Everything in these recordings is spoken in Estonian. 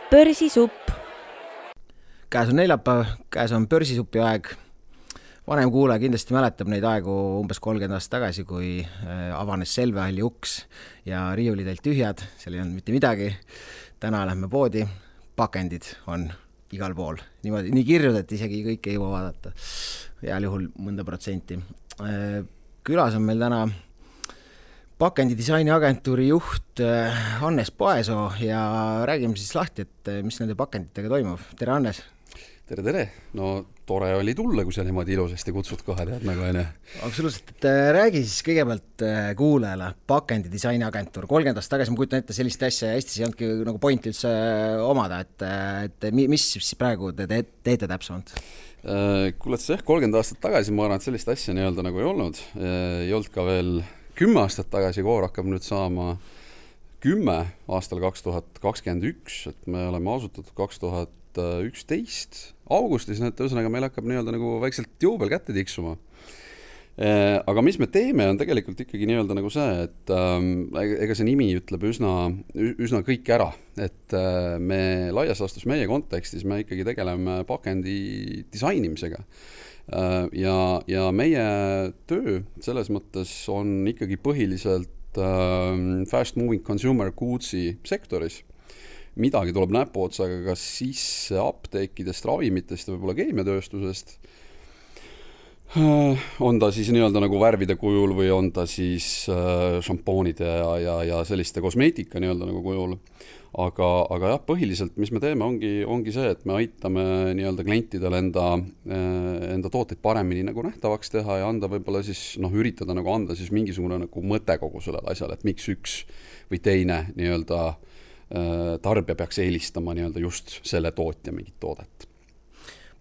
Börsisupp. Käes on neljapäev, käes on börsisupi aeg. Vanem kuulaja kindlasti mäletab neid aegu umbes 30 aastat tagasi, kui avanes Selvehalli uks ja riiulid olid tühjad, seal ei olnud mitte midagi. Täna lähme poodi, pakendid on igal pool. Nii kirjud, et isegi kõik ei jõua vaadata. Heal juhul mõnda protsenti. Külas on meil täna pakendidisaini agentuuri juht Hannes Paesoo ja räägime siis lahti, et mis nende pakenditega toimub. Tere, Hannes! Tere! No tore oli tulla, kui sa niimoodi ilusasti kutsud kohe, tead nagu aine. Absoluutselt, et räägi siis kõigepealt kuulajale pakendidisaini agentuur. 30 aastat tagasi ma kujutan ette sellist asja ja Eestis ei olnudki nagu pointi üldse omada, et mis siis praegu te teete täpsemalt? Kuuled sa 30 aastat tagasi, ma arvan, et sellist asja nii-öelda nagu ei olnud. Ei olnud ka veel 10 aastat tagasi, koor hakkab nüüd saama 10 aastal 2021, et me oleme asutatud 2011 augustis, et ühesõnaga meil hakkab nii-öelda nagu väikselt juubel kätte tiksuma. Aga mis me teeme, on tegelikult ikkagi nii-öelda nagu see, et ega see nimi ütleb üsna kõik ära, et me laias laastus meie kontekstis me ikkagi tegeleme pakendi disainimisega. Ja meie töö selles mõttes on ikkagi põhiliselt fast moving consumer goods'i sektoris. Midagi tuleb näpuotsaga kas sisse apteekidest, ravimitest ja võib-olla keemiatööstusest. On ta siis nii-öelda nagu värvide kujul või on ta siis šampoonide ja selliste kosmeetika nii-öelda nagu kujul. Aga jah, põhiliselt, mis me teeme, ongi see, et me aitame nii-öelda klientidel enda tooteid paremini nagu nähtavaks teha ja anda võib-olla siis, üritada nagu anda siis mingisugune nagu mõte kogu sellele asjale, et miks üks või teine nii-öelda tarbija peaks eelistama nii-öelda just selle tootja mingit toodet.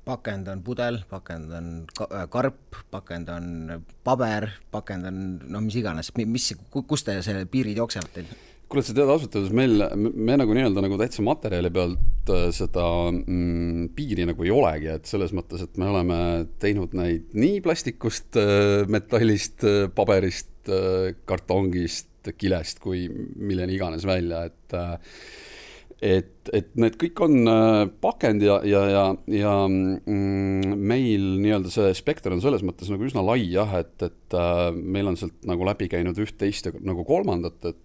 Pakend on pudel, pakend on karp, pakend on paber, pakend on mis iganes. Kus te selle piirid jooksevad teil? Kuule, sa tead asutades, me nagu nii-öelda nagu täitsa materjali pealt seda piiri nagu ei olegi, et selles mõttes, et me oleme teinud neid nii plastikust, metallist, paberist, kartongist, kilest kui milleni iganes välja, et need kõik on pakend ja meil nii-öelda see spekter on selles mõttes nagu üsna lai jah, et meil on sealt nagu läbi käinud üht, teist ja nagu kolmandat, et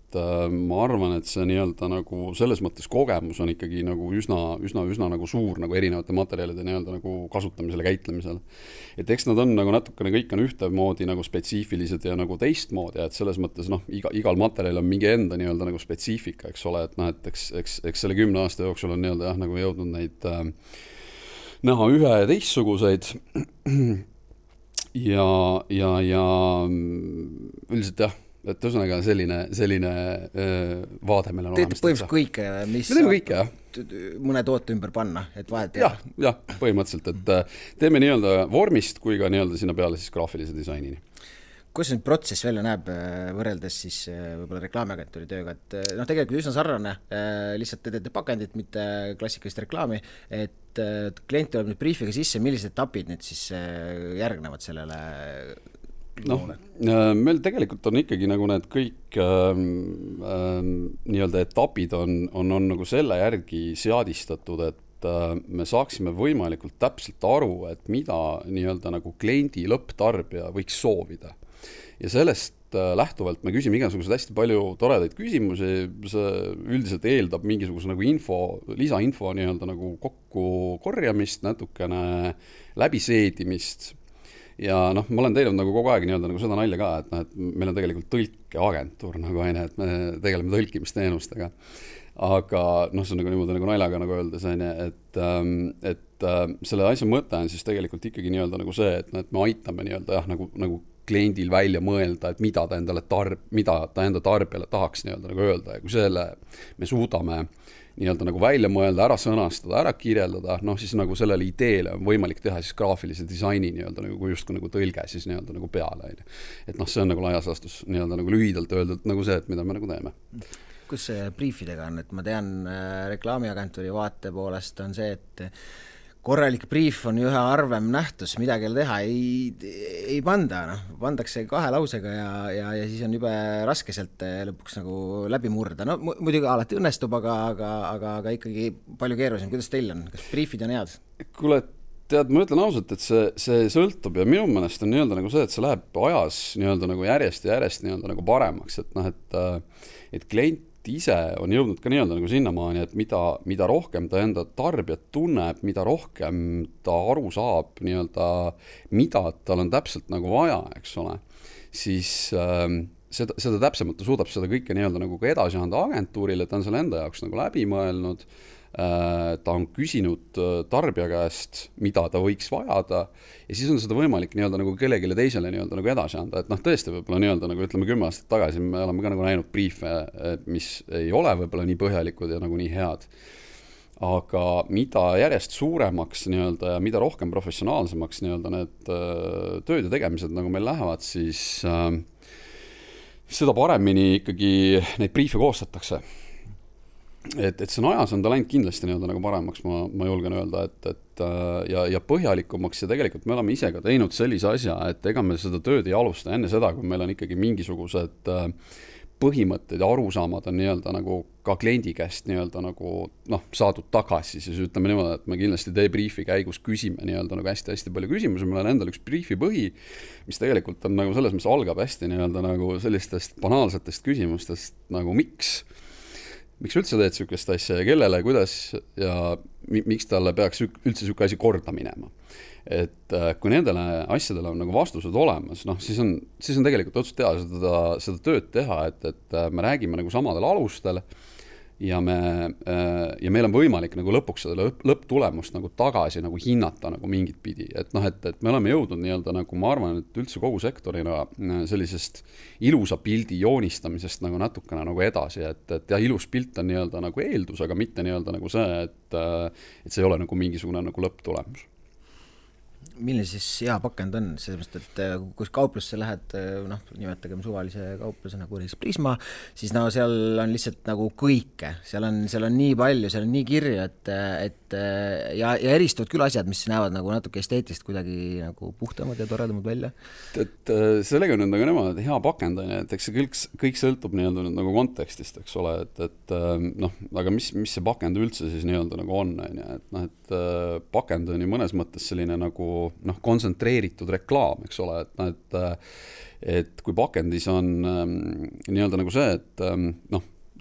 ma arvan, et see nii-öelda nagu selles mõttes kogemus on ikkagi nagu üsna nagu suur nagu erinevate materjalide nii-öelda nagu kasutamisel ja käitlemisel. Et eks nad on nagu natukene kõik on ühtemoodi nagu spetsiifilised ja nagu teistmoodi, et selles mõttes igal materjal on mingi enda nii-öelda nagu spetsiifika, eks ole, et eks selle 10 aasta jooksul on nii-öelda jah, nagu jõudnud neid näha ühe ja teistsuguseid ja üldiselt jah, et ühesõnaga selline vaade meil on olemas. Teete põhimõtteliselt kõike, mis kõike, jah. Mõne toote ümber panna, et vahet jah, põhimõtteliselt, et teeme nii-öelda vormist kui ka nii-öelda sinna peale siis graafilise disainini. Kuidas see protsess välja näeb võrreldes siis võib-olla reklaamiagentuuri tööga, et tegelikult üsna sarnane, lihtsalt te teete pakendit, mitte klassikalist reklaami, et klient tuleb nüüd briefiga sisse, millised etapid nüüd siis järgnevad sellele? Meil tegelikult on ikkagi nagu need kõik nii-öelda etapid on nagu selle järgi seadistatud, et me saaksime võimalikult täpselt aru, et mida nii-öelda nagu kliendi lõpptarbija võiks soovida. Ja sellest lähtuvalt me küsime igasugused hästi palju toredaid küsimusi, see üldiselt eeldab mingisuguse nagu lisainfo nii-öelda nagu kokku korjamist, natukene läbiseedimist. Ja ma olen teinud nagu kogu aeg nii-öelda nagu seda nalja ka, et meil on tegelikult tõlkeagentuur nagu aine, et me tegeleme tõlkimisteenustega. Aga see on nagu niimoodi nagu naljaga nagu öeldes, et selle asja mõte on siis tegelikult ikkagi nii-öelda nagu see, et me aitame nii-öelda jah, nagu kliendil välja mõelda, et mida ta enda tarbijale tahaks nii-öelda nagu öelda ja kui selle me suudame nii-öelda nagu välja mõelda, ära sõnastada, ära kirjeldada, siis nagu sellele ideele on võimalik teha siis graafilise disaini nii-öelda nagu justkui nagu tõlge siis nii-öelda nagu peale. Et see on nagu laias laastus nii-öelda nagu lühidalt öeldult nagu see, et mida me nagu teeme. Kus see briefidega on, et ma tean reklaamiagentuuri vaate poolest on see, et korralik brief on ühe harvem nähtus, midagi teha ei panda, noh, pandakse 2 lausega ja siis on jube raske sealt lõpuks nagu läbi murda. No muidugi alati õnnestub, aga ikkagi palju keerulisem. Kuidas teil on? Kas briefid on head? Kuule, tead, ma ütlen ausalt, et see sõltub ja minu meelest on nii-öelda nagu see, et see läheb ajas nii-öelda nagu järjest nii-öelda nagu paremaks, et noh, et klient ise on jõudnud ka nii-öelda nagu sinnamaani, et mida rohkem ta enda tarbijat tunneb, mida rohkem ta aru saab nii-öelda, mida tal on täpselt nagu vaja, eks ole, siis seda täpsemalt ta suudab seda kõike nii-öelda nagu ka edasi anda agentuurile, ta on selle enda jaoks nagu läbi mõelnud, ta on küsinud tarbija käest, mida ta võiks vajada ja siis on seda võimalik nii-öelda nagu kellelegi teisele nii-öelda nagu edasi anda, et noh, tõesti võib-olla nii-öelda nagu ütleme 10 aastat tagasi me oleme ka nagu näinud briefe, mis ei ole võib-olla nii põhjalikud ja nagu nii head, aga mida järjest suuremaks nii-öelda ja mida rohkem professionaalsemaks nii-öelda need tööd ja tegemised nagu meil lähevad, siis seda paremini ikkagi neid briefe koostatakse. Et see on ajas on ta läinud kindlasti nii-öelda nagu paremaks, ma julgen öelda, ja põhjalikumaks ja tegelikult me oleme ise ka teinud sellise asja, et ega me seda tööd ei alusta enne seda, kui meil on ikkagi mingisugused põhimõtted ja arusaamad on nii-öelda nagu ka kliendi käest nii-öelda nagu saadud tagasi, siis ütleme niimoodi, et me kindlasti debriefi käigus küsime nii-öelda nagu hästi palju küsimusi, meil on endal üks briefi põhi, mis tegelikult on nagu selles, mis algab hästi nii-öelda nagu sellistest banaalsetest küsimustest nagu miks üldse teed sükest asja ja kellele, kuidas ja miks talle peaks üldse süke asi korda minema. Et kui nendele asjadele on nagu vastused olemas, siis on tegelikult otsus teha seda tööd teha, et me räägime nagu samadel alustel ja meil on võimalik nagu lõpuks seda lõpptulemust nagu tagasi nagu hinnata nagu mingit pidi, et me oleme jõudnud nii-öelda nagu ma arvan, et üldse kogu sektorina sellisest ilusa pildi joonistamisest nagu natukene nagu edasi, et jah, ilus pilt on nii-öelda nagu eeldus, aga mitte nii-öelda nagu see, et see ei ole nagu mingisugune nagu lõpptulemus. Milline siis hea pakend on? Sellepärast, et kus kauplusse lähed, nimetagem suvalise kaupluse nagu Prisma, siis seal on lihtsalt nagu kõike. Seal on nii palju, seal on nii kirju, ja eristuvad küll asjad, mis näevad nagu natuke esteetist kuidagi nagu puhtamad ja toredamad välja. Et sellega on nagu nemad hea pakend, et eks see kõik sõltub nii-öelda nagu kontekstist, eks ole, aga mis see pakend üldse siis nii-öelda nagu on, et pakend on ju mõnes mõttes selline nagu kontsentreeritud reklaam, eks ole, et kui pakendis on nii-öelda nagu see, et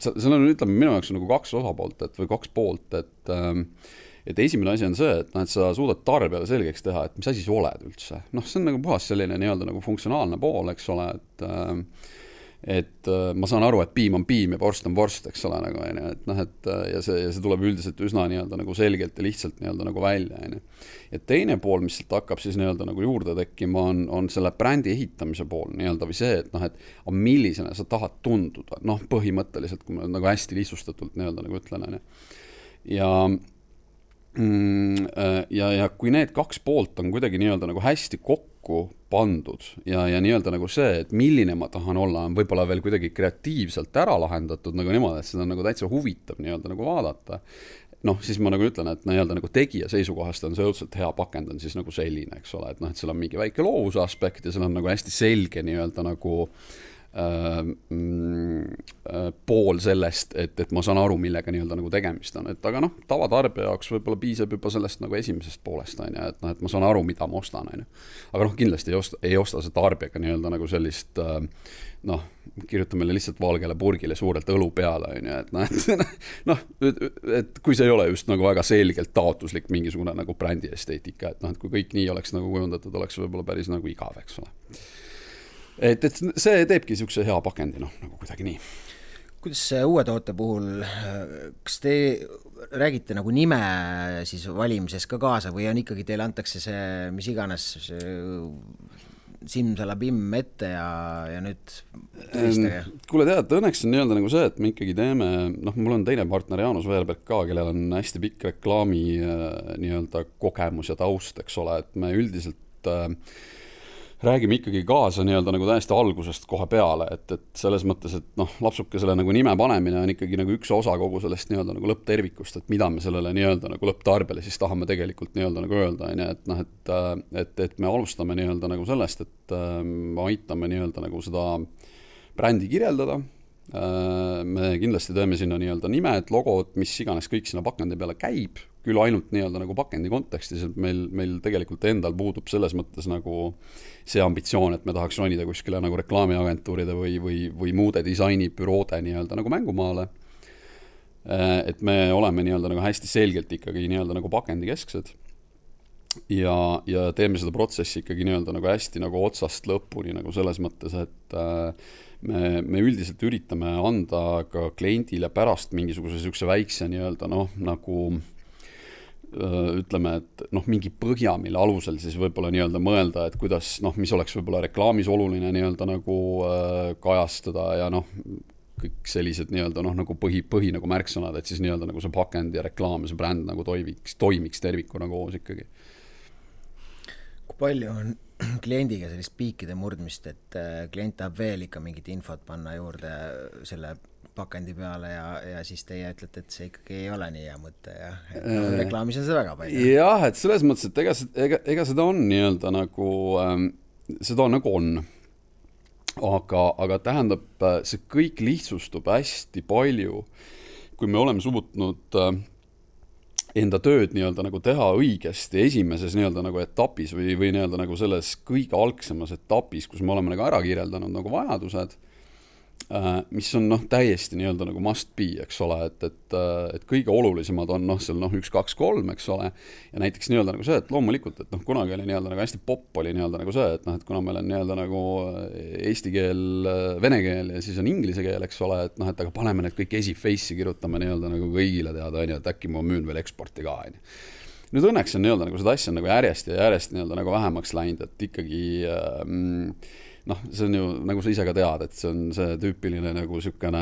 seal on, ütleme, minu jaoks on nagu 2 osapoolt, või 2 poolt, et esimene asi on see, et sa suudad tarbijale selgeks teha, et mis asi sa oled üldse. See on nagu puhas selline nii-öelda nagu funktsionaalne pool, eks ole, et ma saan aru, et piim on piim ja vorst on vorst, eks ole, nagu, ja see tuleb üldiselt üsna nii-öelda nagu selgelt ja lihtsalt nii-öelda nagu välja. Ja teine pool, mis sealt hakkab siis nii-öelda nagu juurde tekkima, on selle brändi ehitamise pool nii-öelda või see, et millisena sa tahad tunduda, põhimõtteliselt, kui ma nagu hästi lihtsustatult nii-öelda nagu ütlen. Ja kui need 2 poolt on kuidagi nii-öelda nagu hästi kokku pandud ja nii-öelda nagu see, et milline ma tahan olla, on võib-olla veel kuidagi kreatiivselt ära lahendatud nagu niimoodi, et seda on nagu täitsa huvitav nii-öelda nagu vaadata, siis ma nagu ütlen, et nii-öelda nagu tegija seisukohast on see õudselt hea pakend on siis nagu selline, eks ole, et seal on mingi väike loovuse aspekt ja seal on nagu hästi selge nii-öelda nagu pool sellest, et ma saan aru, millega nii-öelda nagu tegemist on, et aga tavatarbija jaoks võib-olla piisab juba sellest nagu esimesest poolest, et ma saan aru, mida ma ostan, aga kindlasti ei osta see tarbijaga nii-öelda nagu sellist kirjuta meile lihtsalt valgele purgile suurelt õlu peale, et kui see ei ole just nagu väga selgelt taotluslik mingisugune nagu brändi esteetika, et kui kõik nii oleks nagu kujundatud, oleks võib-olla päris nagu igav, eks ole. Et see teebki niisuguse hea pakendi, nagu kuidagi nii. Kuidas uue toote puhul, kas te räägite nagu nime siis valimises ka kaasa või on ikkagi teile antakse see, mis iganes simsalabim ette ja nüüd tõistage? Kuule tead, õnneks on nii-öelda nagu see, et me ikkagi teeme, mul on teine partner Jaanus Veerberg ka, kellel on hästi pikk reklaami nii-öelda kogemus ja taust, eks ole, et me üldiselt räägime ikkagi kaasa nii-öelda nagu täiesti algusest kohe peale, et selles mõttes, et noh, lapsukesele nagu nime panemine on ikkagi nagu üks osa kogu sellest nii-öelda nagu lõpptervikust, et mida me sellele nii-öelda nagu lõpptarbele siis tahame tegelikult nii-öelda nagu öelda, et noh, et me alustame nii-öelda nagu sellest, et me aitame nii-öelda nagu seda brändi kirjeldada, me kindlasti teeme sinna nii-öelda nimed, logod, mis iganes kõik sinna pakendi peale käib, küll ainult nii-öelda nagu pakendi kontekstis, et meil tegelikult endal puudub selles mõttes nagu see ambitsioon, et me tahaks ronida kuskile nagu reklaamiagentuuride või muude disainibüroode nii-öelda nagu mängumaale. Et me oleme nii-öelda nagu hästi selgelt ikkagi nii-öelda nagu pakendikesksed ja teeme seda protsessi ikkagi nii-öelda nagu hästi nagu otsast lõpuni nagu selles mõttes, et me üldiselt üritame anda ka kliendile pärast mingisuguse sihukese väikse nii-öelda noh, nagu ütleme, et noh, mingi põhja, mille alusel siis võib-olla nii-öelda mõelda, et kuidas, noh, mis oleks võib-olla reklaamis oluline nii-öelda nagu kajastada ja noh, kõik sellised nii-öelda noh, nagu põhi nagu märksõnad, et siis nii-öelda nagu see pakend ja reklaam ja see bränd nagu toimiks tervikuna koos ikkagi. Kui palju on kliendiga sellist piikide murdmist, et klient tahab veel ikka mingit infot panna juurde selle pakendi peale ja siis teie ütlete, et see ikkagi ei ole nii hea mõte ja reklaamis on seda väga palju. Jah, et selles mõttes, et ega seda on nii-öelda nagu, seda nagu on. Aga tähendab, see kõik lihtsustub hästi palju, kui me oleme suutnud enda tööd nii-öelda nagu teha õigesti esimeses nii-öelda nagu etapis või nii-öelda nagu selles kõige algsemas etapis, kus me oleme nagu ära kirjeldanud nagu vajadused, mis on noh, täiesti nii-öelda nagu must be, eks ole, et kõige olulisemad on noh, seal noh, 1, 2, 3, eks ole, ja näiteks nii-öelda nagu see, et loomulikult, et noh, kunagi oli nii-öelda nagu hästi popp oli nii-öelda nagu see, et noh, et kuna meil on nii-öelda nagu eesti keel, vene keel ja siis on inglise keel, eks ole, et noh, et aga paneme need kõik esiface'i, kirjutame nii-öelda nagu kõigile teada, et äkki ma müün veel eksporti ka, Nüüd õnneks on nii-öelda nagu seda asja on nagu järjest nii-öelda nagu vähemaks läinud, et ikkagi noh, see on ju, nagu sa ise ka tead, et see on see tüüpiline nagu sükene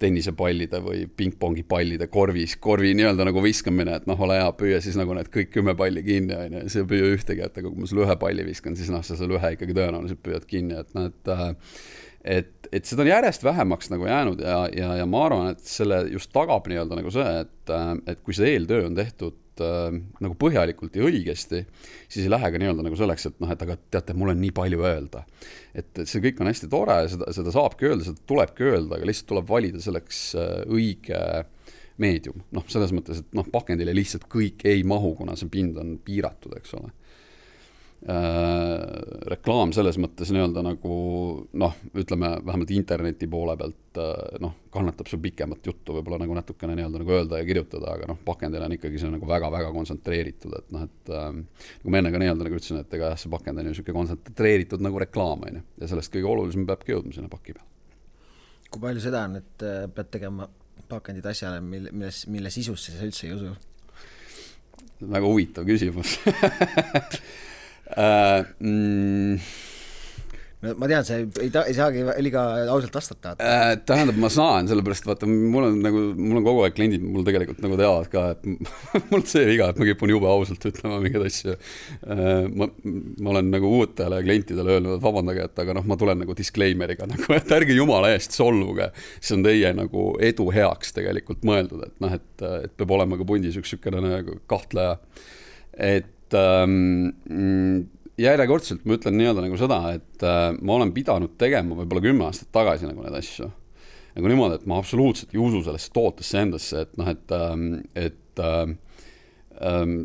tennisepallide või pingpongipallide korvi nii-öelda nagu viskamine, et noh, ole hea, püüa siis nagu need kõik 10 palli kinni, ja see püüa ühtegi, et kui ma sulle ühe palli viskan, siis noh, sa selle ühe ikkagi tõenäoliselt püüad kinni, et noh, et seda on järjest vähemaks nagu jäänud ja ma arvan, et selle just tagab nii-öelda nagu see, et kui see eeltöö on tehtud nagu põhjalikult ja õigesti, siis ei lähe ka nii-öelda nagu selleks, et noh, et aga teate, mul on nii palju öelda. Et see kõik on hästi tore, seda saabki öelda, seda tulebki öelda, aga lihtsalt tuleb valida selleks õige meedium. Noh, selles mõttes, et noh, pakendile lihtsalt kõik ei mahu, kuna see pind on piiratud, eks ole. Reklaam selles mõttes nii-öelda nagu noh, ütleme vähemalt interneti poole pealt noh, kannatab sul pikemat juttu võib-olla nagu natukene nii-öelda nagu öelda ja kirjutada, aga noh, pakendil on ikkagi see nagu väga-väga kontsentreeritud, et noh, et nagu ma enne ka nii-öelda nagu ütlesin, et ega see pakend on ju selline kontsentreeritud nagu reklaam, ja sellest kõige olulisem peabki jõudma sinna paki peal. Kui palju seda on, et pead tegema pakendid asjale, mille sisusse sa üldse ei usu? Väga huvitav küsimus. No, ma tean, see ei saagi liiga ausalt vastata. Tähendab, ma saan, sellepärast vaata, mul on kogu aeg kliendid, mul tegelikult nagu teavad ka, et mul see viga, et ma kipun jube ausalt ütlema mingeid asju. Ma olen nagu uutele klientidele öelnud, et vabandage, et aga noh, ma tulen nagu disclaimeriga, nagu, et ärge jumala eest solvuge. See on teie nagu edu heaks tegelikult mõeldud, et noh, et peab olema ka pundis üks sükene nagu kahtleja. Et järjekordselt ma ütlen nii-öelda nagu seda, et ma olen pidanud tegema võib-olla 10 aastat tagasi nagu need asju. Nagu niimoodi, et ma absoluutselt ei usu sellesse tootesse endasse, et noh, et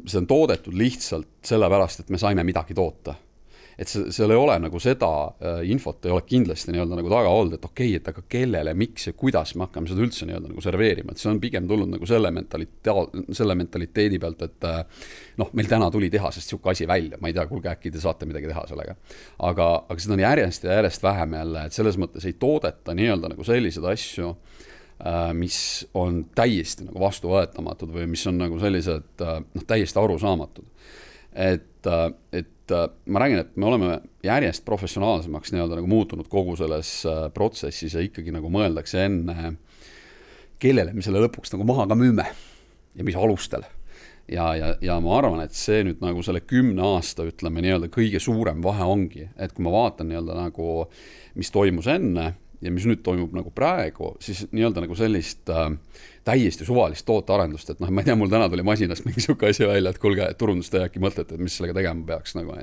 see on toodetud lihtsalt sellepärast, et me saime midagi toota. Et seal ei ole nagu seda infot ei ole kindlasti nii-öelda nagu taga olnud, et okei, et aga kellele, miks ja kuidas me hakkame seda üldse nii-öelda nagu serveerima, et see on pigem tulnud nagu selle mentaliteedi pealt, et noh, meil täna tuli tehasest siuke asi välja, ma ei tea, kuulge, äkki te saate midagi teha sellega. Aga seda on järjest ja järjest vähem jälle, et selles mõttes ei toodeta nii-öelda nagu sellised asju, mis on täiesti nagu vastuvõetamatud või mis on nagu sellised noh, täiesti arusaamatud. Et ma räägin, et me oleme järjest professionaalsemaks nii-öelda nagu muutunud kogu selles protsessis ja ikkagi nagu mõeldakse enne, kellele me selle lõpuks nagu maha ka müüme ja mis alustel. ja ma arvan, et see nüüd nagu selle 10 aasta, ütleme nii-öelda kõige suurem vahe ongi, et kui ma vaatan nii-öelda nagu, mis toimus enne ja mis nüüd toimub nagu praegu, siis nii-öelda nagu sellist täiesti suvalist tootearendust, et noh, ma ei tea, mul täna tuli masinast mingi siuke asi välja, et kuulge, turundusteja äkki mõtlete, et mis sellega tegema peaks nagu,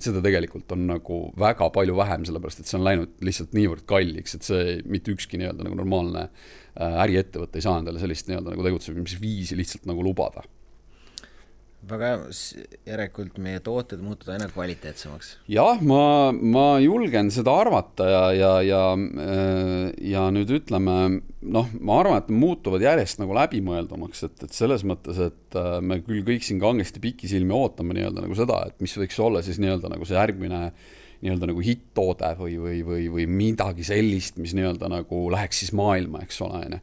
seda tegelikult on nagu väga palju vähem, sellepärast et see on läinud lihtsalt niivõrd kalliks, et see mitte ükski nii-öelda nagu normaalne äriettevõte ei saa endale sellist nii-öelda nagu tegutsemisviisi lihtsalt nagu lubada. Väga järelikult meie tooted muutuvad aina kvaliteetsemaks. Jah, ma julgen seda arvata ja nüüd ütleme, noh, ma arvan, et muutuvad järjest nagu läbimõeldumaks, et selles mõttes, et me küll kõik siin kangesti pikisilmi ootame nii-öelda nagu seda, et mis võiks olla siis nii-öelda nagu see järgmine nii-öelda nagu hitt-toode või midagi sellist, mis nii-öelda nagu läheks siis maailma, eks ole,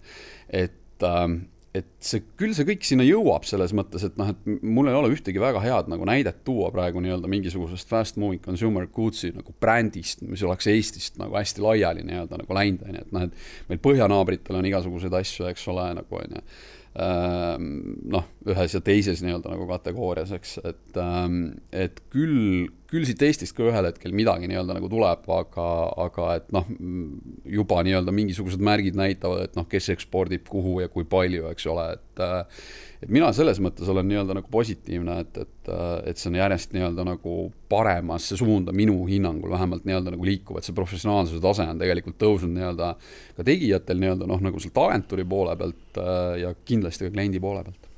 et see kõik sinna jõuab selles mõttes, et noh, et mul ei ole ühtegi väga head nagu näidet tuua praegu nii-öelda mingisugusest fast moving consumer goodsi nagu brändist, mis oleks Eestist nagu hästi laiali nii-öelda nagu läinud, et noh, et meil põhjanaabritel on igasuguseid asju, eks ole, nagu on ju, noh, ühes ja teises nii-öelda nagu kategoorias, eks, et küll siit Eestist ka ühel hetkel midagi nii-öelda nagu tuleb, aga et noh, juba nii-öelda mingisugused märgid näitavad, et noh, kes ekspordib kuhu ja kui palju, eks ole, et mina selles mõttes olen nii-öelda nagu positiivne, et see on järjest nii-öelda nagu paremasse suunda minu hinnangul vähemalt nii-öelda nagu liikuv, et see professionaalsuse tase on tegelikult tõusnud nii-öelda ka tegijatel nii-öelda noh, nagu sealt agentuuri poole pealt ja kindlasti ka kliendi poole pealt.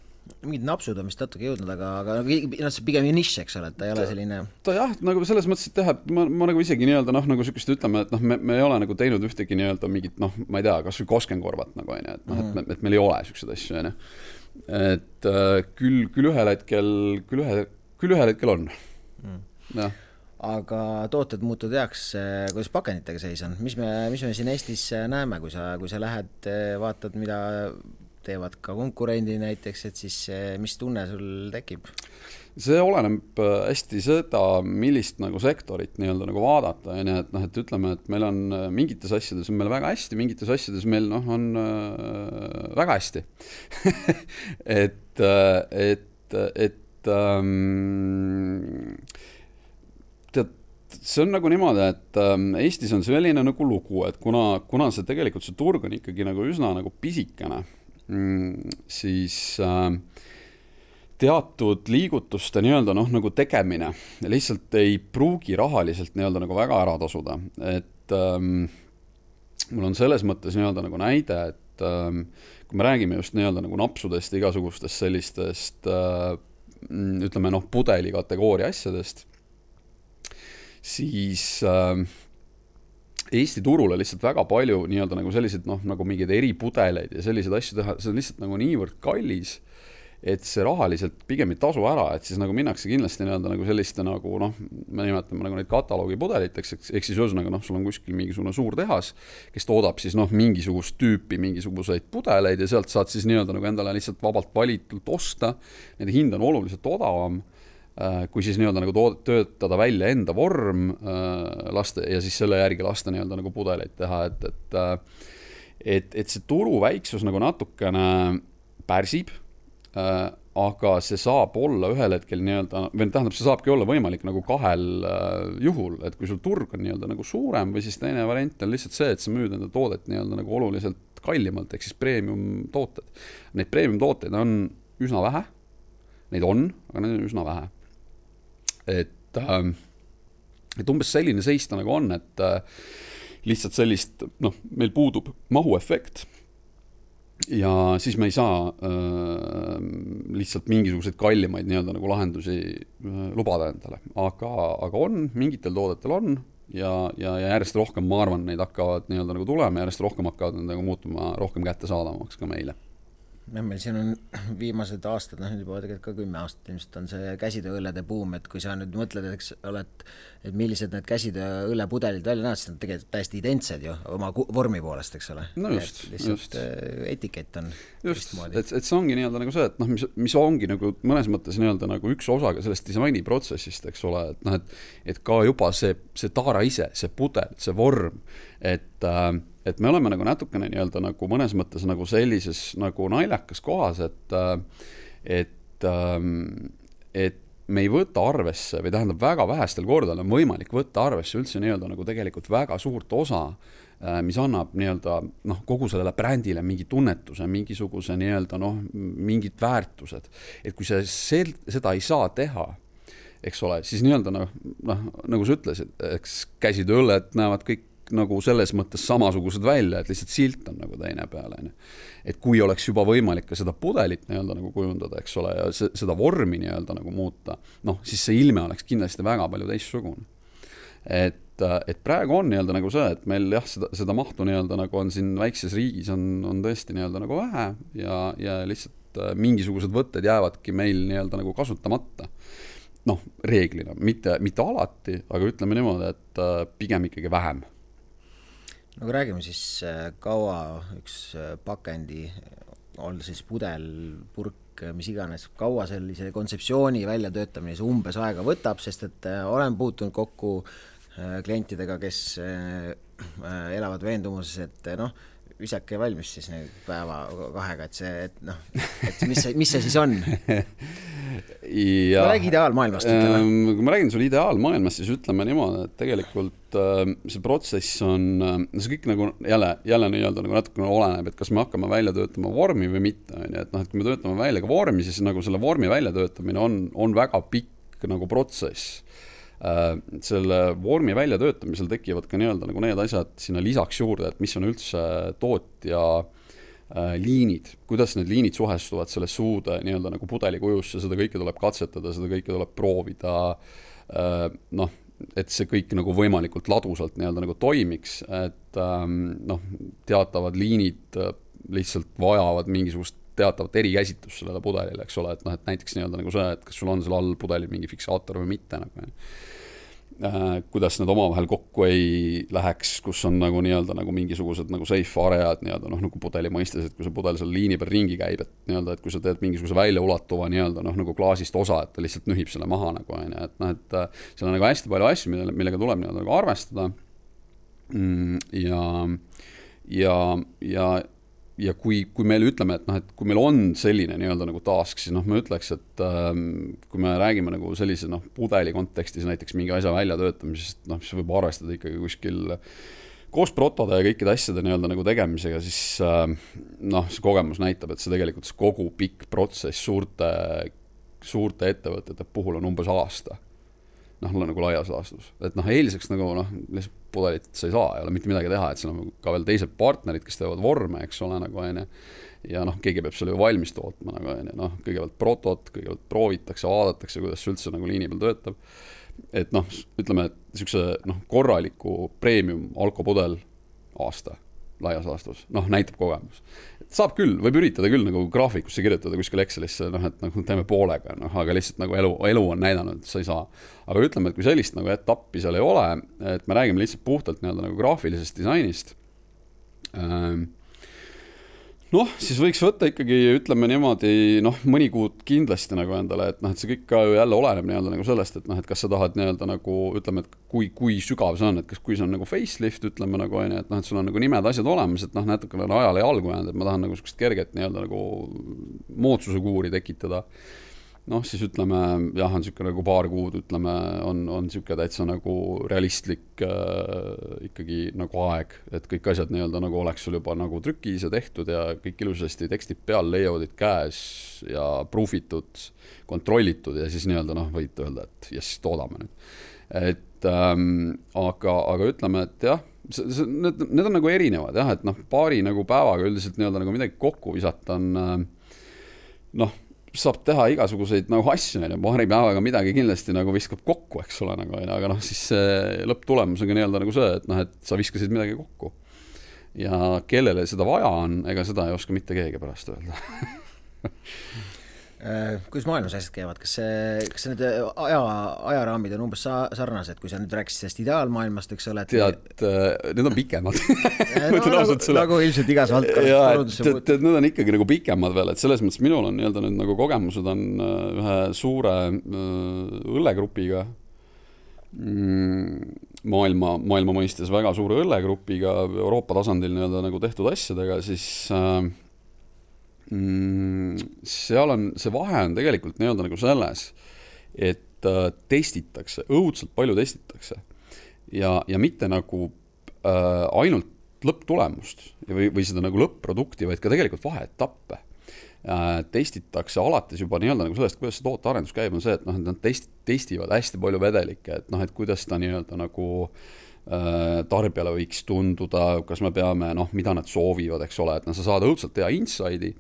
Mingid napsud on vist natuke jõudnud, aga see pigem nišš, eks ole, et ta ei ole selline... Ta jah, nagu selles mõttes, et teha, ma nagu isegi nii-öelda noh, nagu sükest ütleme, et noh, me ei ole nagu teinud ühtegi nii-öelda mingit, noh, ma ei tea, kas või koskenkorvat nagu, et noh, et meil ei ole sükseid asju, et küll ühel hetkel on. Ja. Aga tooted muutud heaks, kuidas pakenditega seis on? Mis me siin Eestis näeme, kui sa lähed, vaatad, mida teevad ka konkurendi näiteks, et siis mis tunne sul tekib? See oleneb hästi seda, millist nagu sektorit nii-öelda nagu vaadata, et noh, et ütleme, et meil on mingites asjades on meil väga hästi, mingites asjades meil noh, on väga hästi. See on nagu niimoodi, et Eestis on selline nagu lugu, et kuna see tegelikult see turg on ikkagi nagu üsna nagu pisikene, siis teatud liigutuste nii-öelda noh, nagu tegemine lihtsalt ei pruugi rahaliselt nii-öelda nagu väga ära tasuda, et mul on selles mõttes nii-öelda nagu näide, et kui me räägime just nii-öelda nagu napsudest, igasugustest sellistest ütleme noh, pudeli kategooria asjadest, siis Eesti turule lihtsalt väga palju nii-öelda nagu sellised noh, nagu mingid eripudeleid ja sellised asju teha, see on lihtsalt nagu niivõrd kallis, et see rahaliselt pigem ei tasu ära, et siis nagu minnakse kindlasti nii-öelda nagu selliste nagu noh, me nimetame nagu neid kataloogipudeliteks, ehk siis ühesõnaga noh, sul on kuskil mingisugune suur tehas, kes toodab siis noh, mingisugust tüüpi mingisuguseid pudeleid ja sealt saad siis nii-öelda nagu endale lihtsalt vabalt valitult osta, nende hind on oluliselt odavam, kui siis nii-öelda nagu töötada välja enda vorm laste ja siis selle järgi lasta nii-öelda nagu pudeleid teha, et see turu väiksus nagu natukene pärsib, aga see saab olla ühel hetkel nii-öelda, või tähendab, see saabki olla võimalik nagu kahel juhul, et kui sul turg on nii-öelda nagu suurem või siis teine variant on lihtsalt see, et sa müüd enda toodet nii-öelda nagu oluliselt kallimalt, ehk siis premium tooted. Neid premium tooteid on üsna vähe, neid on, aga neid on üsna vähe. Et umbes selline seis ta nagu on, et lihtsalt sellist, noh, meil puudub mahuefekt ja siis me ei saa lihtsalt mingisuguseid kallimaid nii-öelda nagu lahendusi lubada endale, aga on, mingitel toodetel on ja järjest rohkem, ma arvan, neid hakkavad nii-öelda nagu tulema ja järjest rohkem hakkavad nagu muutuma rohkem kättesaadavamaks ka meile. Meil siin on viimased aastad, noh nüüd juba tegelikult ka 10 aastat ilmselt on see käsitööõllede buum, et kui sa nüüd mõtled, eks ole, et millised need käsitööõllepudelid välja näevad, siis on tegelikult täiesti identsed ju oma vormi poolest, eks ole. No just. Etikett on just, et see ongi nii-öelda nagu see, et noh, mis ongi nagu mõnes mõttes nii-öelda nagu üks osa ka sellest disainiprotsessist, eks ole, et noh, et ka juba see taara ise, see pudel, see vorm, et me oleme nagu natukene nii-öelda nagu mõnes mõttes nagu sellises nagu naljakas kohas, et et me ei võta arvesse või tähendab väga vähestel kordadel on võimalik võtta arvesse üldse nii-öelda nagu tegelikult väga suurt osa, mis annab nii-öelda kogu sellele brändile mingi tunnetuse, mingisuguse nii-öelda mingid väärtused. Et kui seda ei saa teha, eks ole, siis nii-öelda nagu sa ütlesid, eks käsid õlled näevad kõik nagu selles mõttes samasugused välja, et lihtsalt silt on nagu teine peale. Et kui oleks juba võimalik ka seda pudelit nii-öelda nagu kujundada, eks ole, ja seda vormi nii-öelda nagu muuta, siis see ilme oleks kindlasti väga palju teistsugune. Et praegu on nii-öelda nagu see, et meil jah, seda mahtu nii-öelda nagu on siin väikses riigis on tõesti nii-öelda nagu vähe ja lihtsalt mingisugused võtted jäävadki meil nii-öelda nagu kasutamata. Reeglina, mitte alati, aga ütleme niimoodi, et pigem ikkagi vähem. Kui räägime siis kaua üks pakendi, on siis pudel, purk, mis iganes, kaua sellise kontseptsiooni väljatöötamine see umbes aega võtab, sest et olen puutunud kokku klientidega, kes elavad veendumuses, et visake valmis siis nüüd päeva kahega, et mis see siis on? Ma räägi ideaalmaailmast. Kui ma räägin sulle ideaalmaailmast, siis ütleme niimoodi, et tegelikult see protsess on, see kõik nagu jälle nii-öelda nagu natukene oleneb, et kas me hakkame välja töötama vormi või mitte. Et kui me töötame välja ka vormi, siis nagu selle vormi väljatöötamine on väga pikk nagu protsess. Selle vormi väljatöötamisel tekivad ka nii-öelda nagu need asjad sinna lisaks juurde, et mis on üldse tootja liinid, kuidas need liinid suhestuvad selle suude nii-öelda nagu pudeli kujusse, seda kõike tuleb katsetada, seda kõike tuleb proovida, et see kõik nagu võimalikult ladusalt nii-öelda nagu toimiks, et teatavad liinid lihtsalt vajavad mingisugust teatavat erikäsitlust sellele pudelile, eks ole, et näiteks nii-öelda nagu see, et kas sul on seal all pudelil mingi fiksaator või mitte, kuidas need omavahel kokku ei läheks, kus on nagu nii-öelda nagu mingisugused nagu safe aread nii-öelda nagu pudeli mõistes, et kui see pudel seal liini peal ringi käib, et nii-öelda, et kui sa teed mingisuguse väljaulatuva nii-öelda nagu klaasist osa, et ta lihtsalt nühib selle maha nagu, et seal on nagu hästi palju asju, millega tuleb nii-öelda nagu arvestada ja kui meil ütleme, et kui meil on selline nii-öelda nagu task, siis me ütleks, et kui me räägime nagu sellise pudeli kontekstis näiteks mingi asja väljatöötamisest, siis võib arvestada ikkagi kuskil koos protode ja kõikide asjade nii-öelda nagu tegemisega, siis see kogemus näitab, et see tegelikult kogu pikk protsess suurte ettevõtete puhul on umbes aasta. Nagu laias laastus. Et eeliseks nagu lihtsalt pudelit sa ei saa, ei ole mitte midagi teha, et seal on ka veel teised partnerid, kes teevad vorme, eks ole, nagu ja keegi peab selle ju valmis tootma, nagu kõigepealt protot, kõigepealt proovitakse, vaadatakse, kuidas see üldse nagu liini peal töötab. Et ütleme, et niisuguse korraliku premium alkopudel aasta laias laastus, näitab kogemus. Saab küll, võib üritada küll nagu graafikusse kirjutada kuskil Excelisse, et teeme poolega, aga lihtsalt nagu elu on näidanud, et sa ei saa. Aga ütleme, et kui sellist nagu etappi seal ei ole, et me räägime lihtsalt puhtalt nagu graafilisest disainist, siis võiks võtta ikkagi, ütleme niimoodi, mõni kuud kindlasti nagu endale, et see kõik ka jälle oleneb nii-öelda nagu sellest, et kas sa tahad nii-öelda nagu, ütleme, et kui sügav see on, et kui see on nagu facelift, ütleme nagu, et sul on nagu nimed asjad olemas, et natukene ajale jalgu jäänud, et ma tahan nagu sukest kerget nii-öelda nagu moodsuse kuuri tekitada. Siis ütleme, jah, on niisugune nagu paar kuud, ütleme, on niisugune täitsa nagu realistlik ikkagi nagu aeg, et kõik asjad nii-öelda nagu oleks sul juba nagu trükis ja tehtud ja kõik ilusasti tekstid peal, layoutid käes ja proofitud, kontrollitud ja siis nii-öelda võid öelda, et jess, toodame nüüd. Et aga ütleme, et jah, need on nagu erinevad, jah, et paari nagu päevaga üldiselt nii-öelda nagu midagi kokku visata on saab teha igasuguseid nagu asju, paari päevaga midagi kindlasti nagu viskab kokku, eks ole, nagu, aga siis lõpptulemus on ka nii-öelda nagu see, et sa viskasid midagi kokku. Ja kellele seda vaja on, ega seda ei oska mitte keegi pärast öelda. Kuidas maailmas asjad käivad? Kas need ajaraamid on umbes sarnased, kui sa nüüd rääkisid sellest ideaalmaailmast, eks ole? Tead, need on pikemad. Nagu ilmselt igas valdkonnas. Need on ikkagi nagu pikemad veel, et selles mõttes minul on nii-öelda nüüd nagu kogemused on ühe suure õllegrupiga, maailma mõistes väga suure õllegrupiga Euroopa tasandil nii-öelda nagu tehtud asjadega, siis seal on, see vahe on tegelikult nii-öelda nagu selles, et testitakse, õudselt palju testitakse ja mitte nagu ainult lõpptulemust või seda nagu lõpp-produkti, vaid ka tegelikult vaheetappe. Testitakse alates juba nii-öelda nagu sellest, kuidas see tootearendus käib, on see, et noh, et nad testivad hästi palju vedelikke, et noh, et kuidas ta nii-öelda nagu tarbijale võiks tunduda, kas me peame, noh, mida nad soovivad, eks ole, et sa saad õudselt hea inside'i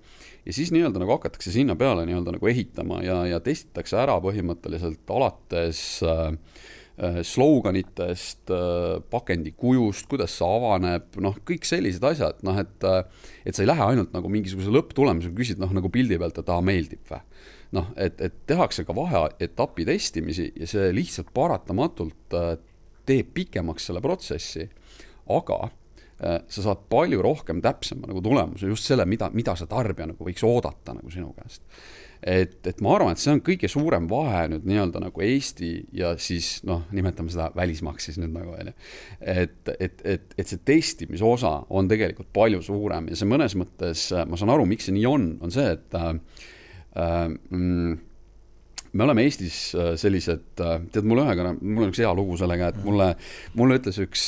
ja siis nii-öelda nagu hakatakse sinna peale nii-öelda nagu ehitama ja testitakse ära põhimõtteliselt alates sloganitest, pakendi kujust, kuidas see avaneb, noh, kõik sellised asjad, noh, et sa ei lähe ainult nagu mingisuguse lõpptulemusega küsid, noh, nagu pildi pealt, et meeldib või. Noh, et tehakse ka vaheetapi testimisi ja see lihtsalt paratamatult teeb pikemaks selle protsessi, aga sa saad palju rohkem täpsema nagu tulemuse, just selle, mida see tarbija nagu võiks oodata nagu sinu käest. Et ma arvan, et see on kõige suurem vahe nüüd nii-öelda nagu Eesti ja siis, noh, nimetame seda välismaaks siis nüüd nagu, et see testimise osa on tegelikult palju suurem ja see mõnes mõttes, ma saan aru, miks see nii on see, et me oleme Eestis sellised, tead, mul on üks hea lugu sellega, et mulle ütles üks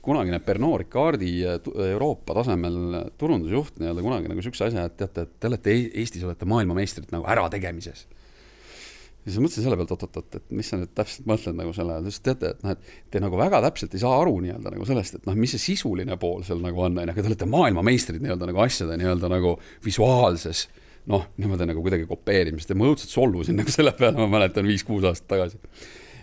kunagine Pernod Ricardi Euroopa tasemel turundusjuht nii-öelda kunagi nagu sükse asja, et teate, et te olete Eestis olete maailmameistrid nagu ärategemises. Ja siis mõtlesin selle pealt, et mis sa nüüd täpselt mõtled nagu selle, teate, et, noh, et te nagu väga täpselt ei saa aru nii-öelda nagu sellest, et noh, mis see sisuline pool seal nagu on, aga te olete maailmameistrid nii-öelda nagu asjade nii-öelda nagu visuaalses noh, niimoodi nagu kuidagi kopeerimist ja ma õudselt solvusin nagu selle peale, ma mäletan 5-6 aastat tagasi.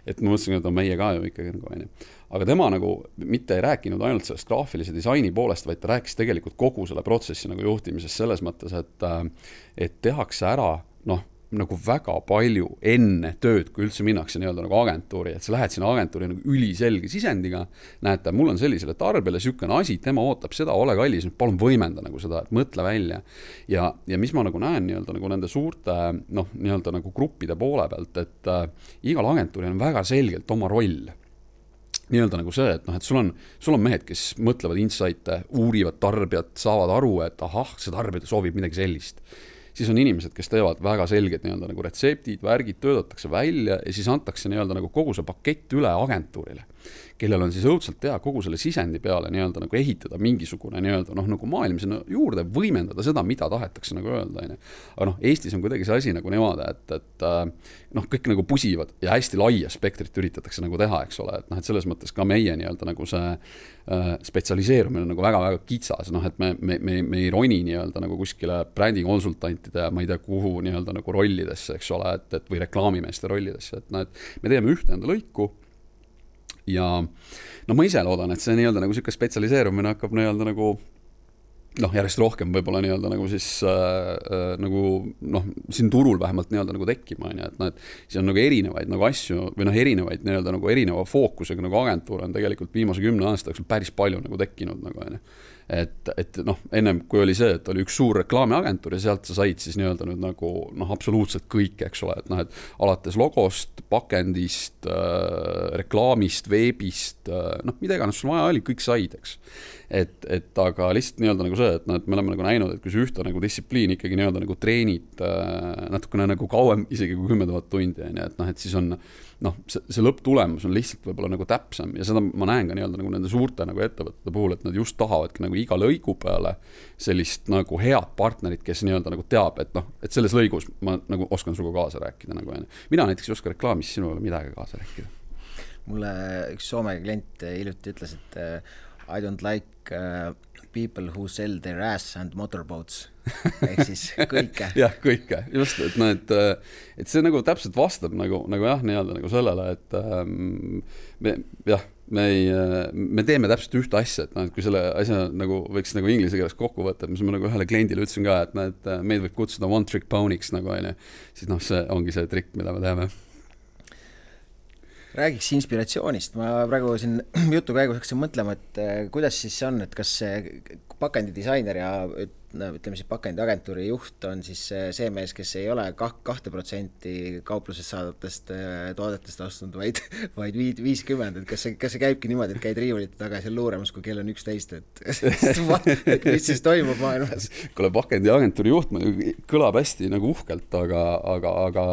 Et ma mõtlesin, et on meie ka ju ikkagi nagu aine. Aga tema nagu mitte ei rääkinud ainult sellest graafilise disaini poolest, vaid ta rääkis tegelikult kogu selle protsessi nagu juhtimisest selles mõttes, et tehakse ära, noh, nagu väga palju enne tööd, kui üldse minnakse nii-öelda nagu agentuuri, et sa lähed sinna agentuuri nagu üliselge sisendiga, näete, mul on sellisele tarbijale sükene asi, tema ootab seda, ole kallis, nüüd palun võimenda nagu seda, et mõtle välja. Ja mis ma nagu näen nii-öelda nagu nende suurte, noh, nii-öelda nagu gruppide poole pealt, et igal agentuuril on väga selgelt oma roll. Nii-öelda nagu see, et noh, et sul on mehed, kes mõtlevad insight'e, uurivad tarbijat, saavad aru, et ahah, see tarbija soovib midagi sellist. Siis on inimesed, kes teevad väga selged nii-öelda nagu retseptid, värgid, töödatakse välja ja siis antakse nii-öelda nagu kogu see pakett üle agentuurile, kellel on siis õudselt teha kogu selle sisendi peale nii-öelda nagu ehitada mingisugune nii-öelda noh, nagu maailm sinna juurde, võimendada seda, mida tahetakse nagu öelda. Aga noh, Eestis on kuidagi see asi nagu niimoodi, et noh, kõik nagu pusivad ja hästi laia spektrit üritatakse nagu teha, eks ole, et noh, et selles mõttes ka meie nii-öelda nagu see spetsialiseerumine on nagu väga-väga kitsas, noh, et me ei roni nii-öelda nagu kuskile brändikonsultantide ja ma ei tea kuhu nii-öelda nagu rollidesse, eks ole, et või reklaamimeeste rollidesse, et noh, et me teeme ühte enda lõiku ja no ma ise loodan, et see nii-öelda nagu siuke spetsialiseerumine hakkab nii-öelda nagu noh, järjest rohkem võib-olla nii-öelda nagu siis nagu noh, siin turul vähemalt nii-öelda nagu tekkima, et noh, et see on nagu erinevaid nagu asju või noh, erinevaid nii-öelda nagu erineva fookusega nagu agentuur on tegelikult viimase 10 aasta jooksul päris palju nagu tekkinud nagu, et noh, ennem kui oli see, et oli üks suur reklaamiagentuur ja sealt sa said siis nii-öelda nüüd nagu noh, absoluutselt kõik, eks ole, et noh, et alates logost, pakendist, reklaamist, veebist, noh, mida iganes sul vaja oli, kõik said, eks. Et aga lihtsalt nii-öelda nagu see, et noh, et me oleme nagu näinud, et kui see ühte nagu distsipliin ikkagi nii-öelda nagu treenid natukene nagu kauem, isegi kui 10 000 tundi, et noh, et siis on noh, see lõpptulemus on lihtsalt võib-olla nagu täpsem ja seda ma näen ka nii-öelda nagu nende suurte nagu ettevõtete puhul, et nad just tahavadki nagu iga lõigu peale sellist nagu head partnerit, kes nii-öelda nagu teab, et noh, et selles lõigus ma nagu oskan suga kaasa rääkida nagu, mina näiteks ei oska reklaamis sinule midagi kaasa rääkida. Mulle üks Soome klient hiljuti ütles, et I don't like people who sell their ass and motorboats ehk siis kõike. Jah, kõike, just, et no, et see nagu täpselt vastab nagu jah, nii-öelda nagu sellele, et me teeme täpselt ühte asja, et noh, et kui selle asja nagu võiks nagu inglise keeles kokku võtta, mis ma nagu ühele kliendile ütlesin ka, et noh, et meid võib kutsuda one trick pony'ks nagu aine, siis noh, see ongi see trikk, mida me teeme. Räägiks inspiratsioonist. Ma praegu siin jutu käigus hakkasin mõtlema, et kuidas siis on, et kas see pakendidisainer ja ütleme siis pakendiagentuuri juht on siis see mees, kes ei ole 2% kauplusest saadavatest toodetest ostnud, vaid 50, et kas see käibki niimoodi, et käid riiulite taga seal luuramas, kui kell on 11, et mis siis toimub maailmas? Kuule, pakendiagentuuri juht kõlab hästi nagu uhkelt, aga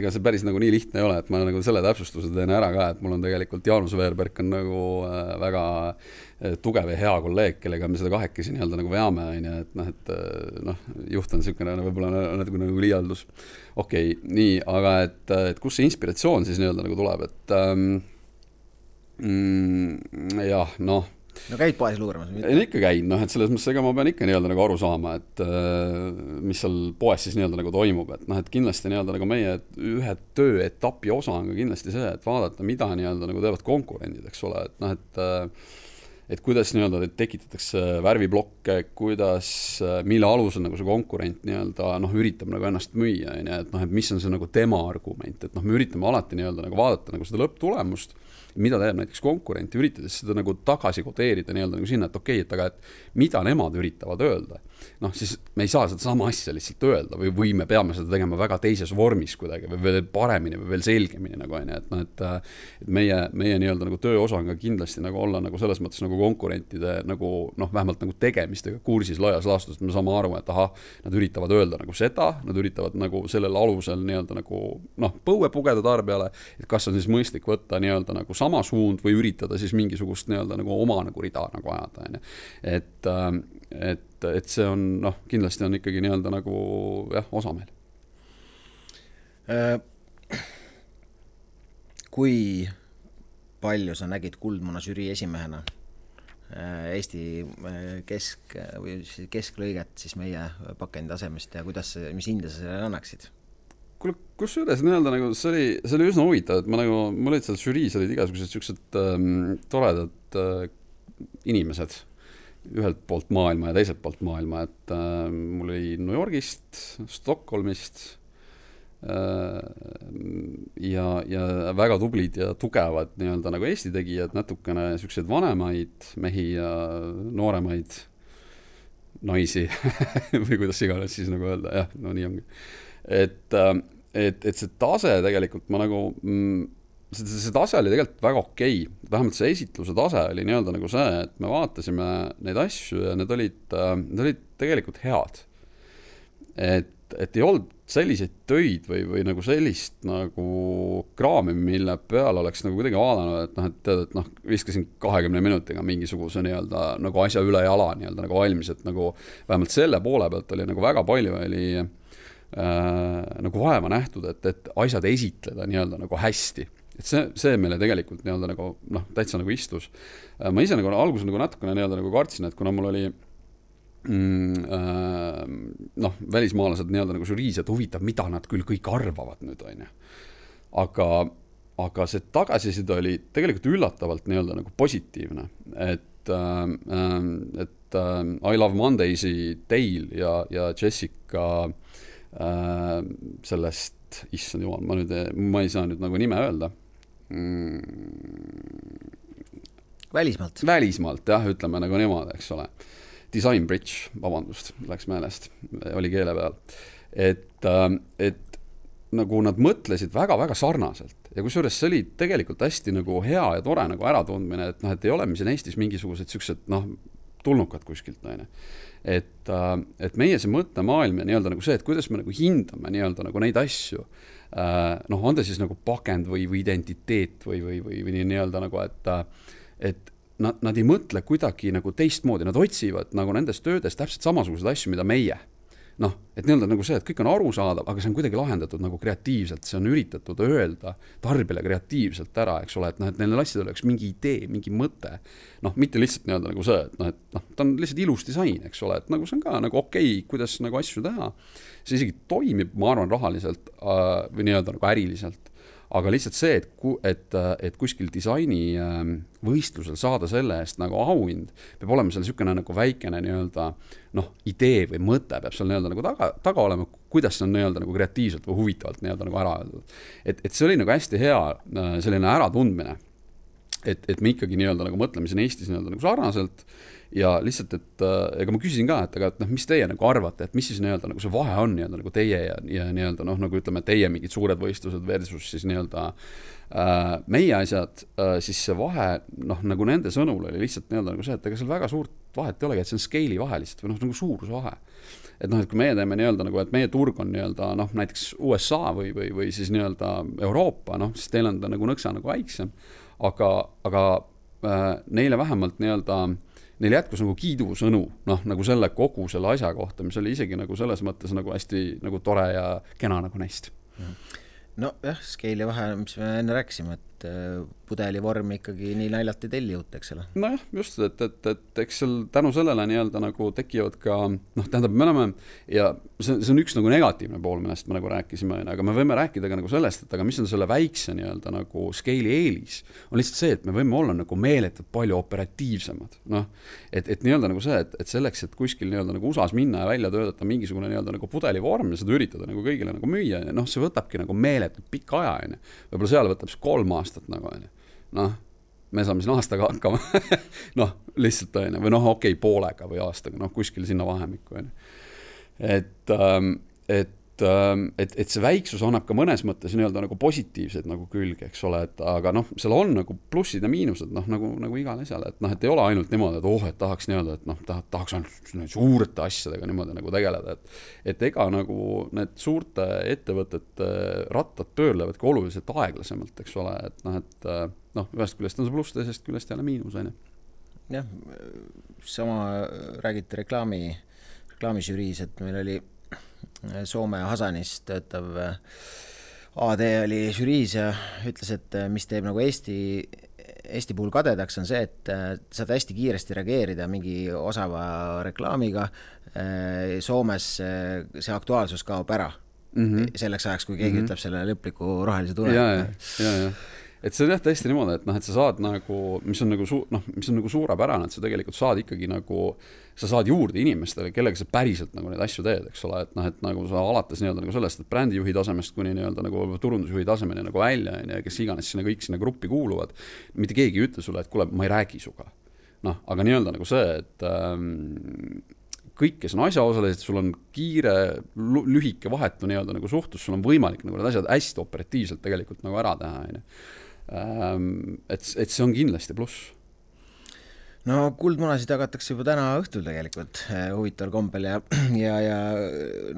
ega see päris nagu nii lihtne ei ole, et ma nagu selle täpsustuse teen ära ka, et mul on tegelikult Jaanus Veerberg on nagu väga tugev ja hea kolleeg, kellega me seda kahekesi nii-öelda nagu veame, et juht on niisugune võib-olla natuke nagu liialdus. Okei, nii, aga et kus see inspiratsioon siis nii-öelda nagu tuleb, et jah, noh. No käid poes luuramas? Ikka käin, et selles mõttes ega ma pean ikka nii-öelda nagu aru saama, et mis seal poes siis nii-öelda nagu toimub, et kindlasti nii-öelda nagu meie ühe tööetapi osa on ka kindlasti see, et vaadata, mida nii-öelda nagu teevad konkurendid, eks ole, et kuidas nii-öelda tekitatakse värviblokke, kuidas, mille alusel nagu see konkurent nii-öelda üritab nagu ennast müüa, et mis on see nagu tema argument, et me üritame alati nii-öelda nagu vaadata nagu seda lõpptulemust, mida teeb näiteks konkurenti, üritades seda nagu tagasi kodeerida nii-öelda nagu sinna, et okei, et aga et mida nemad üritavad öelda. Siis me ei saa seda sama asja lihtsalt öelda või me peame seda tegema väga teises vormis kuidagi või veel paremini või veel selgemini nagu on, et meie nii-öelda nagu töö osa on ka kindlasti nagu olla nagu selles mõttes nagu konkurentide nagu vähemalt nagu tegemistega kursis laias laastus, et me saame aru, et nad üritavad öelda nagu seda, nad üritavad nagu sellel alusel nii-öelda nagu põue pugeda tarbijale, et kas on siis mõistlik võtta nii-öelda nagu sama suund või üritada siis mingisugust nii-öelda nagu oma nagu rida nagu ajada, et see on, kindlasti on ikkagi nii-öelda nagu osa meil. Kui palju sa nägid Kuldmuna žürii esimehena Eesti kesklõiget siis meie pakendi tasemest ja mis hinde sa sellele annaksid? Kus üles nii-öelda nagu see oli üsna huvitav, et mul olid seal žüriis olid igasugused siuksed toredad inimesed ühelt poolt maailma ja teiselt poolt maailma, et mul oli New Yorgist, Stockholmist ja väga tublid ja tugevad nii-öelda nagu Eesti tegijad, natukene siuksed vanemaid mehi ja nooremaid naisi või kuidas iganes siis nagu öelda, nii ongi. Et see tase tegelikult ma nagu see tase oli tegelikult väga okei. Vähemalt see esitluse tase oli nii-öelda nagu see, et me vaatasime neid asju ja need olid tegelikult head. Et ei olnud selliseid töid või nagu sellist nagu kraami, mille peal oleks nagu kuidagi vaadanud, et viskasin 20 minutiga mingisuguse nii-öelda nagu asja üle jala nii-öelda nagu valmis, et nagu vähemalt selle poole pealt oli nagu väga palju oli nagu vaeva nähtud, et asjad esitleda nii-öelda nagu hästi. Et see meile tegelikult nii-öelda nagu täitsa nagu istus. Ma ise nagu alguses nagu natukene nii-öelda nagu kartsin, et kuna mul oli välismaalased nii-öelda nagu žüriis, et huvitav, mida nad küll kõik arvavad nüüd, on ju. Aga see tagasiside oli tegelikult üllatavalt nii-öelda nagu positiivne, et I Love Mondays'i Dale ja Jessica sellest, issand jumal, ma ei saa nüüd nagu nime öelda. Välismaalt, jah, ütleme nagu niimoodi, eks ole. Design Bridge, vabandust, läks meelest, oli keele peal. Et nagu nad mõtlesid väga-väga sarnaselt. Ja kusjuures see oli tegelikult hästi nagu hea ja tore nagu äratundmine, et ei ole mis Eestis mingisugused siuksed tulnukad kuskilt. Et meie see mõttemaailm ja nii-öelda nagu see, et kuidas me nagu hindame nii-öelda nagu neid asju, on ta siis nagu pakend või identiteet või nii-öelda nagu, et nad ei mõtle kuidagi nagu teistmoodi, nad otsivad nagu nendes töödes täpselt samasugused asju, mida meie. Et nii-öelda nagu see, et kõik on arusaadav, aga see on kuidagi lahendatud nagu kreatiivselt, see on üritatud öelda tarbijale kreatiivselt ära, eks ole, et neil asjadel oleks mingi idee, mingi mõte, mitte lihtsalt nii-öelda nagu see, et ta on lihtsalt ilus disain, eks ole, et nagu see on ka nagu okei, kuidas nagu asju teha, see isegi toimib, ma arvan, rahaliselt või nii-öelda nagu äriliselt, aga lihtsalt see, et kuskil disaini võistlusel saada selle eest nagu auhind, peab olema seal niisugune nagu väikene nii-öelda idee või mõte peab seal nii-öelda nagu taga olema, kuidas see on nii-öelda nagu kreatiivselt või huvitavalt nii-öelda nagu ära öeldud. Et see oli nagu hästi hea selline äratundmine. et me ikkagi nii-öelda nagu mõtleme siin Eestis nii-öelda nagu sarnaselt ja lihtsalt, et ega ma küsisin ka, et mis teie nagu arvate, et mis siis nii-öelda nagu see vahe on nii-öelda nagu teie ja nii-öelda nagu ütleme, teie mingid suured võistlused versus siis nii-öelda meie asjad, siis see vahe, nagu nende sõnul oli lihtsalt nii-öelda nagu see, et ega seal väga suurt vahet ei olegi, et see on scaale'i vahe lihtsalt või nagu suuruse vahe. Et et kui meie teeme nii-öelda nagu, et meie turg on nii-öelda näiteks USA või siis nii-öelda Euroopa, siis teil on ta nagu nõksa nagu väiksem, aga neile vähemalt nii-öelda neil jätkus nagu kiidusõnu, nagu selle kogu selle asja kohta, mis oli isegi nagu selles mõttes nagu hästi nagu tore ja kena nagu neist. No jah, scaale'i vahe, mis me enne rääkisime, et pudeli vorm ikkagi nii naljalt ei telli uut, eks ole. Nojah, just, et eks seal tänu sellele nii-öelda nagu tekivad ka, tähendab, me oleme, ja see on üks nagu negatiivne pool, millest me nagu rääkisime, aga me võime rääkida ka nagu sellest, et aga mis on selle väikse nii-öelda nagu scaale'i eelis, on lihtsalt see, et me võime olla nagu meeletult palju operatiivsemad. Et nii-öelda nagu see, et selleks, et kuskil nii-öelda nagu USAs minna ja välja töötada mingisugune nii-öelda nagu pudelivorm ja seda üritada nagu kõigile nagu müüa, see võtabki nagu meeletult pikka aja, võib-olla seal võtab 3 aastat nagu, me saame siin aastaga hakkama, lihtsalt või okei, poolega või aastaga, kuskil sinna vahemikku, et see väiksus annab ka mõnes mõttes nii-öelda nagu positiivseid nagu külge, eks ole, aga seal on nagu plussid ja miinused, nagu igal asjal, et ei ole ainult niimoodi, et tahaks nii-öelda, et tahaks ainult suurte asjadega niimoodi nagu tegeleda, et ega nagu need suurte ettevõtete rattad pöörlevad ka oluliselt aeglasemalt, eks ole, et ühest küljest on see pluss, teisest küljest jälle miinus, Jah, sama räägiti reklaamižüriis, et meil oli Soome Hasanis töötav AD oli žüriis ja ütles, et mis teeb nagu Eesti puhul kadedaks on see, et saad hästi kiiresti reageerida mingi osava reklaamiga. Soomes see aktuaalsus kaob ära selleks ajaks, kui keegi ütleb selle lõpliku rohelise tule. Ja. Et see on jah tõesti niimoodi, et sa saad nagu, mis on nagu suurepärane, et sa tegelikult saad ikkagi nagu, sa saad juurde inimestele, kellega sa päriselt nagu neid asju teed, eks ole, et nagu sa alates nii-öelda nagu sellest, et brändijuhi tasemest kuni nii-öelda nagu turundusjuhi tasemeni nagu välja, ja kes iganes sinna kõik sinna gruppi kuuluvad, mitte keegi ei ütle sulle, et kuule, ma ei räägi suga. Aga nii-öelda nagu see, et kõik, kes on asjaosalised, sul on kiire, lühike vahetu nii-öelda nagu suhtus, sul on võimalik nagu need asjad hästi operatiivselt tegelikult nagu ära teha, et see on kindlasti pluss. No kuldmunasid jagatakse juba täna õhtul tegelikult huvitaval kombel ja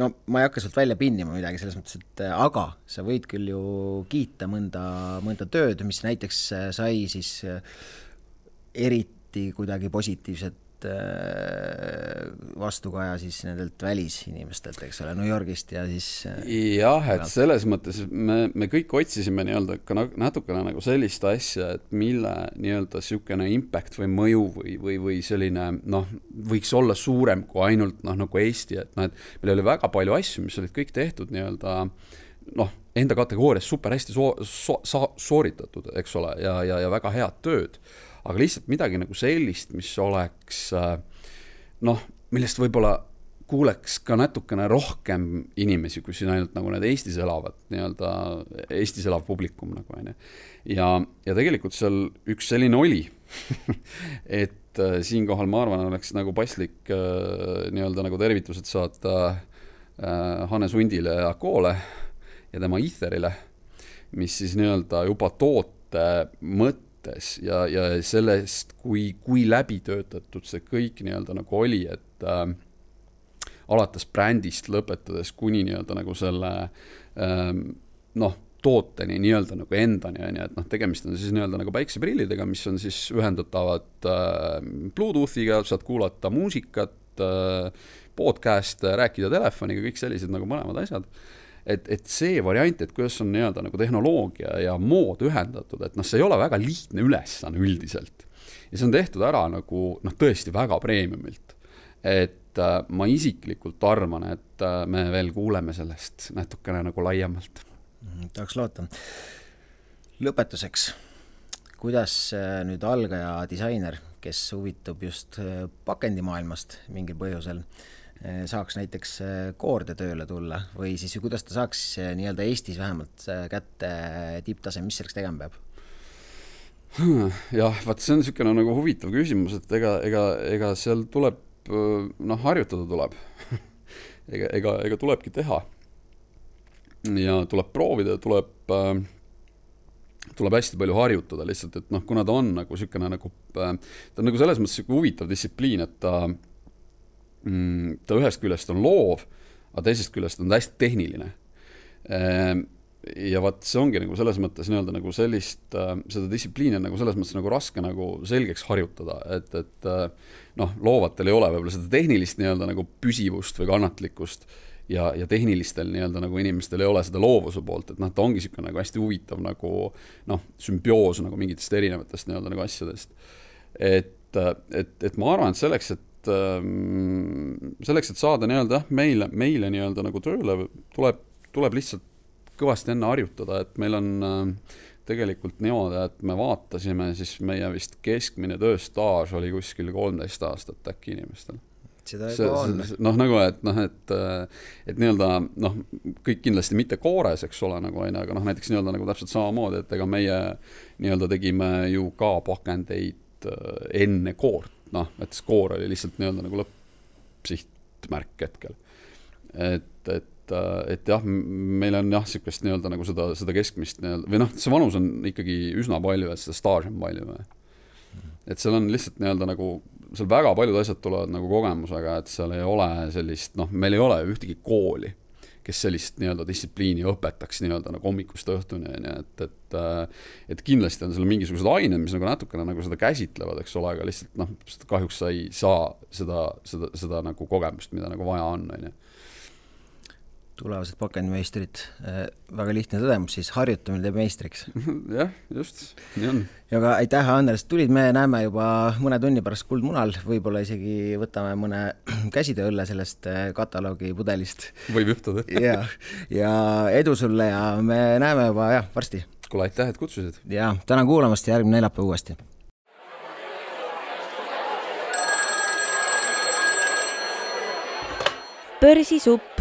ma ei hakka sult välja pinnima midagi selles mõttes, et aga sa võid küll ju kiita mõnda tööd, mis näiteks sai siis eriti kuidagi positiivset vastukaja siis nendelt välisinimestelt, eks ole, New Yorgist ja siis jah, et selles mõttes me kõik otsisime nii-öelda ka natukene nagu sellist asja, et mille nii-öelda sükene impact või mõju või selline, võiks olla suurem kui ainult nagu Eesti, et meil oli väga palju asju, mis olid kõik tehtud nii-öelda enda kategoorias super hästi sooritatud, eks ole, ja väga head tööd. Aga lihtsalt midagi nagu sellist, mis oleks, millest võib-olla kuuleks ka natukene rohkem inimesi, kui siin ainult nagu need Eestis elavad, nii-öelda Eestis elav publikum nagu, ja tegelikult seal üks selline oli, et siinkohal ma arvan, oleks nagu paslik nii-öelda nagu tervitused saata Hannes Hundile ja Koole ja tema Etherile, mis siis nii-öelda juba toote ja sellest, kui läbi töötatud see kõik nii-öelda nagu oli, et alates brändist lõpetades kuni nii-öelda nagu selle tooteni nii-öelda nagu endani, et tegemist on siis nii-öelda nagu päikseprillidega, mis on siis ühendatavad Bluetoothiga, saad kuulata muusikat, podcast, rääkida telefoniga, kõik sellised nagu mõlemad asjad. Et see variant, et kuidas on nii-öelda nagu tehnoloogia ja mood ühendatud, et see ei ole väga lihtne ülesanne üldiselt. Ja see on tehtud ära nagu tõesti väga premiumilt. Et ma isiklikult arvan, et me veel kuuleme sellest natukene nagu laiemalt. Tahaks loota. Lõpetuseks, kuidas nüüd algaja disainer, kes huvitub just pakendimaailmast mingil põhjusel, saaks näiteks koorde tööle tulla või siis kuidas ta saaks nii-öelda Eestis vähemalt kätte tipptase, mis selleks tegema peab? Jah, vaat see on niisugune nagu huvitav küsimus, et ega seal tuleb, harjutada tuleb. ega tulebki teha. Ja tuleb proovida, tuleb hästi palju harjutada lihtsalt, et kuna ta on nagu niisugune ta on nagu selles mõttes huvitav distsipliin, et ta ühest küljest on loov, aga teisest küljest on ta hästi tehniline. Ja vaat see ongi nagu selles mõttes nagu sellist, seda distsipliini on nagu selles mõttes nagu raske nagu selgeks harjutada, et loovatel ei ole võib-olla seda tehnilist nagu püsivust või kannatlikkust ja tehnilistel nagu inimestel ei ole seda loovuse poolt, et ta ongi niisugune nagu hästi huvitav nagu sümbioos nagu mingitest erinevatest nagu asjadest. Et ma arvan, et selleks, et saada meile nagu tööle tuleb lihtsalt kõvasti enne harjutada, et meil on tegelikult niimoodi, et me vaatasime, siis meie vist keskmine tööstaaž oli kuskil 13 aastat äkki inimestel. Seda on. Et kõik kindlasti mitte koores, eks ole, aga näiteks nagu täpselt samamoodi, et ega meie tegime ju ka pakendeid enne koort, et koor oli lihtsalt nagu lõppsihtmärk hetkel. Et jah, meil on niisugust nagu seda keskmist või see vanus on ikkagi üsna palju, et seda staaž on palju. Et seal on lihtsalt nagu, seal väga paljud asjad tulevad nagu kogemusega, et seal ei ole sellist, meil ei ole ühtegi kooli, kes sellist distsipliini õpetaks nagu hommikust õhtuni, et kindlasti on seal mingisugused ained, mis nagu natukene nagu seda käsitlevad, eks ole, aga lihtsalt kahjuks sa ei saa seda nagu kogemust, mida nagu vaja on. Tulevased pakendimeistrid, väga lihtne tõdemus, siis harjutamine teeb meistriks. Jah, just, nii on. Ja ka aitäh, Andres, tulid, me näeme juba mõne tunni pärast Kuldmunal, võib-olla isegi võtame mõne käsitööõlle sellest kataloogi pudelist. Võib juhtuda. Ja edu sulle ja me näeme juba varsti. Kuule, aitäh, et kutsusid. Ja tänan kuulamast ja järgmine neljapäev uuesti. Börsisupp.